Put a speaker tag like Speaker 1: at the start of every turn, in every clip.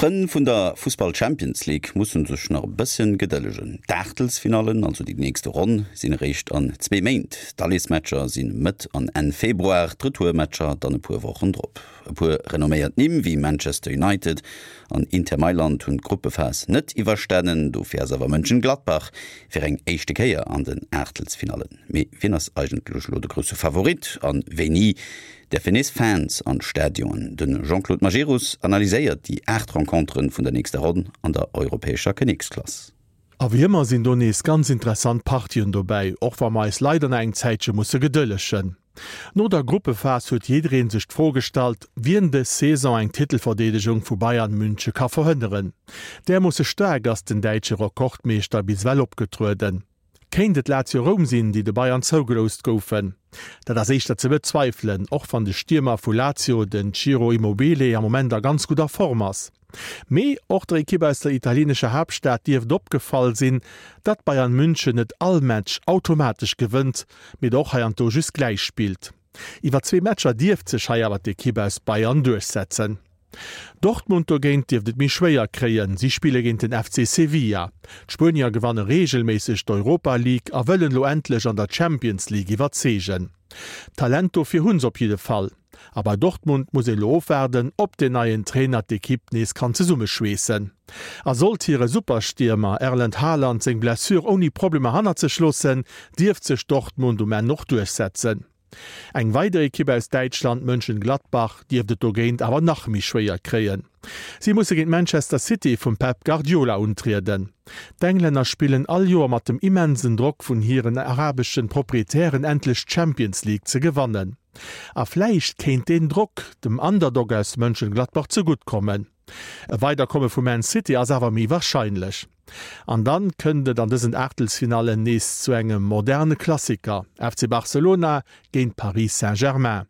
Speaker 1: D'Frënn vun der Fussball Champions League mussen sech nach e bësschen gedëllegen. D'Aachtelsfinallen, also déi nächste Ronn, sinn eréischt an zwee Méint. D'Alleesmatcher si Mëtt an Enn Februar, d'Retourmatcher dann e puer Wochen drop. E puer renomméiert Nimm wéi Manchester United an Inter Mailand hunn d'Gruppephas net iwwerstanen. Dofir ass awer Mönchengladbach fir eng éischte Kéier an den Aachtelsfinallen. Mee wien ass eigentlech elo de grousse Favorit an wéini däerfen nees Fans an d'Stadionen? De Jean-Claude Majerus analyséiert déi 8 Renconteren vun der nächster Ronn an der europäescher Kinneksklass.
Speaker 2: A wéi ëmmer sinn do nees ganz interessant Partien dobäi, och wa mer eis leider nach eng Zäitche musse gedëllegen. No der Gruppephas huet jiddereen sech d'Fro gestallt, wien dës Saison eng Titelverdeedegung vu Bayern Münche ka verhënneren. Därmoosse staark ass den däitsche Rekordmeeschter bis ewell opgetrueden. Kéint et Lazio Roum sinn, déi de Bayern zougeloust goufen? Dat ass éischter ze bezweifelen, och wann de Stiermer vu Lazio, den Ciro Immobile, am Moment a ganz gudder Form ass. Mee och der Ekipp aus der italienescher Haaptstad dierft opgefall sinn, datt Bayern München net all Match automatesch gewënnt, mee der och heiansdo just gläich spillt. Iwwer zwee Matcher dierft sech hei awer d'Ekipp aus Bayern duerchsetzen. Dortmund dogéint dierft et méi schwéier kréien. Si spille géint den FC Sevilla. D'Spuenier gewanne reegelméisseg d'Europa League a wëllen elo endlech an der Champions League iwwerzeegen. D'Talent dofir hunn se op jidde Fall. A bei Dortmund muss een elo ofwaarden, ob den neien Trainer d'Ekipp nees kann zesummeschweessen. A sollt hire Superstiermer Erlend Haaland seng Blessure ouni Problemer hannert sech loossen, dierft sech Dortmund um Enn och duerchsetzen. Eng weider Ekipp aus Däitschland, Mönchengladbach, dierft et dogéint awer nach méi schwéier kréien. Si musse géint Manchester City vum Pep Guardiola untrieden. D'Englänner spillen all Joer mat dem immensen Drock vun hiren arabeschen Proprietären endlech d'Champions League ze gewannen. A vläicht kéint deen Drock dem Underdog aus Mönchengladbach zegutt kommen. E Weiderkomme vu Man City ass awer méi warscheinlech. An dann kënnt et an dësen Aachtelsfinallen nees zu engem moderne Klassiker, FC Barcelona géint Paris Saint-Germain.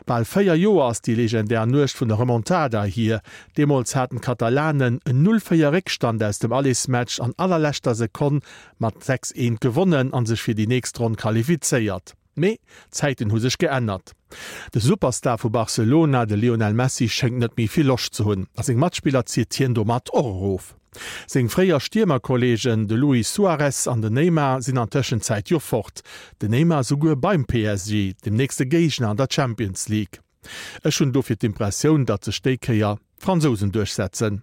Speaker 2: Bal 4 Joer ass déi legendär Nuecht vun der Remontada hier. Deemools haten d'Katalanen en 0, 4 Réckstand aus dem Allersmatch an allerleschter Sekonn mat 6, 1 gewonnen a sech fir déi nächst Ronn qualifizéiert. Mee d'Zäiten hu sech geännert. De Superstar vu Barcelona, de Lionel Messi, schéngt net méi vill Loscht ze hunn a seng Matspiller zitt hien domat och erof. Seng fréier Stiermerkolleegen, de Luis Suarez an den Neymar, sinn an Tëschenzäit jo fort. Den Neymar souguer beim PSG, dem nächste Géigner an der Champions League. Ech hunn dofir d'Impressioun, datt sech déi Kéier d'Fransousen duerchsetzen.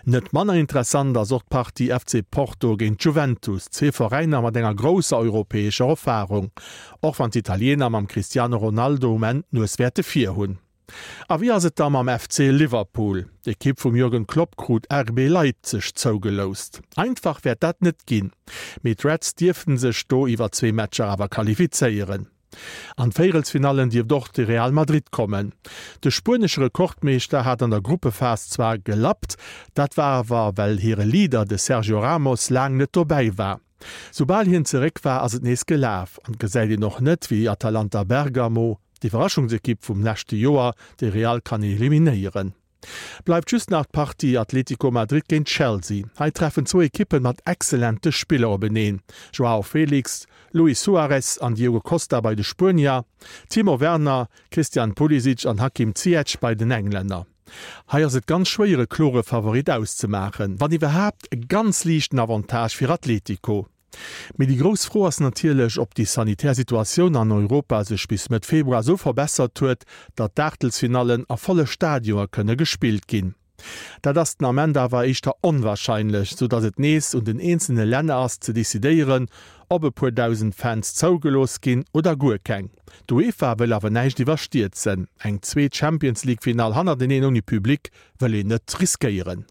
Speaker 2: Net manner interessant ass och d'Partie FC Porto géint Juventus, zwee Veräiner mat enger grousser europäescher Erfarung, och wann d'Italiener mam Cristiano Ronaldo um Enn d'Nues wäerte vir hunn. A wéi ass et da mam FC Liverpool? D'Ekipp vum Jürgen Klopp krut RB Leipzig zougeloust. Einfach wäert dat net ginn, mee d'Reds dierften sech do iwwer zwee Matcher awer qualifizéieren. An d'Véierelsfinallen dierft och de Real Madrid kommen. De spuenesche Rekordmeeschter hat an der Gruppephas zwar gelappt, dat war awer well hire Leader, de Sergio Ramos, laang net dobäi war. Soubal hien zeréck war, ass et nees gelaf an et gesäit een och net, wéi Atalanta Bergamo, d'Iwwerraschungsekipp vum leschte Joer, de Real kann eliminéieren. Bleift just nach d'Partie Atlético Madrid géint Chelsea. Hei treffen zwou Ekippen mat excellente Spiller openeen, Joao Felix, Luis Suarez an Diogo Costa bei de Spuenier, Timo Werner, Christian Pulisic an Hakim Ziyech bei den Englänner. Hei ass et ganz schwéier e klore Favorit auszemaachen, wann iwwerhaapt e ganz liichten Avantage fir Atlético. Mee déi grouss Fro ass natierlech, ob déi sanitär Situatioun an Europa sech bis Mëtt Februar esou verbessert huet, datt d'Aachtelsfinallen a volle Stadioe kënne gespillt ginn. Dat ass den Ament awer éischter onwarscheinlech, sou datt et nees un den eenzelne Länner ass ze decidéieren, ob e puer 1.000 Fans zougelooss ginn oder guer keng. D'UEFA wëll awer näischt iwwerstierzen. Eng zweet Champions-League-Finall hannerteneen ouni Public wëll een net riskéieren.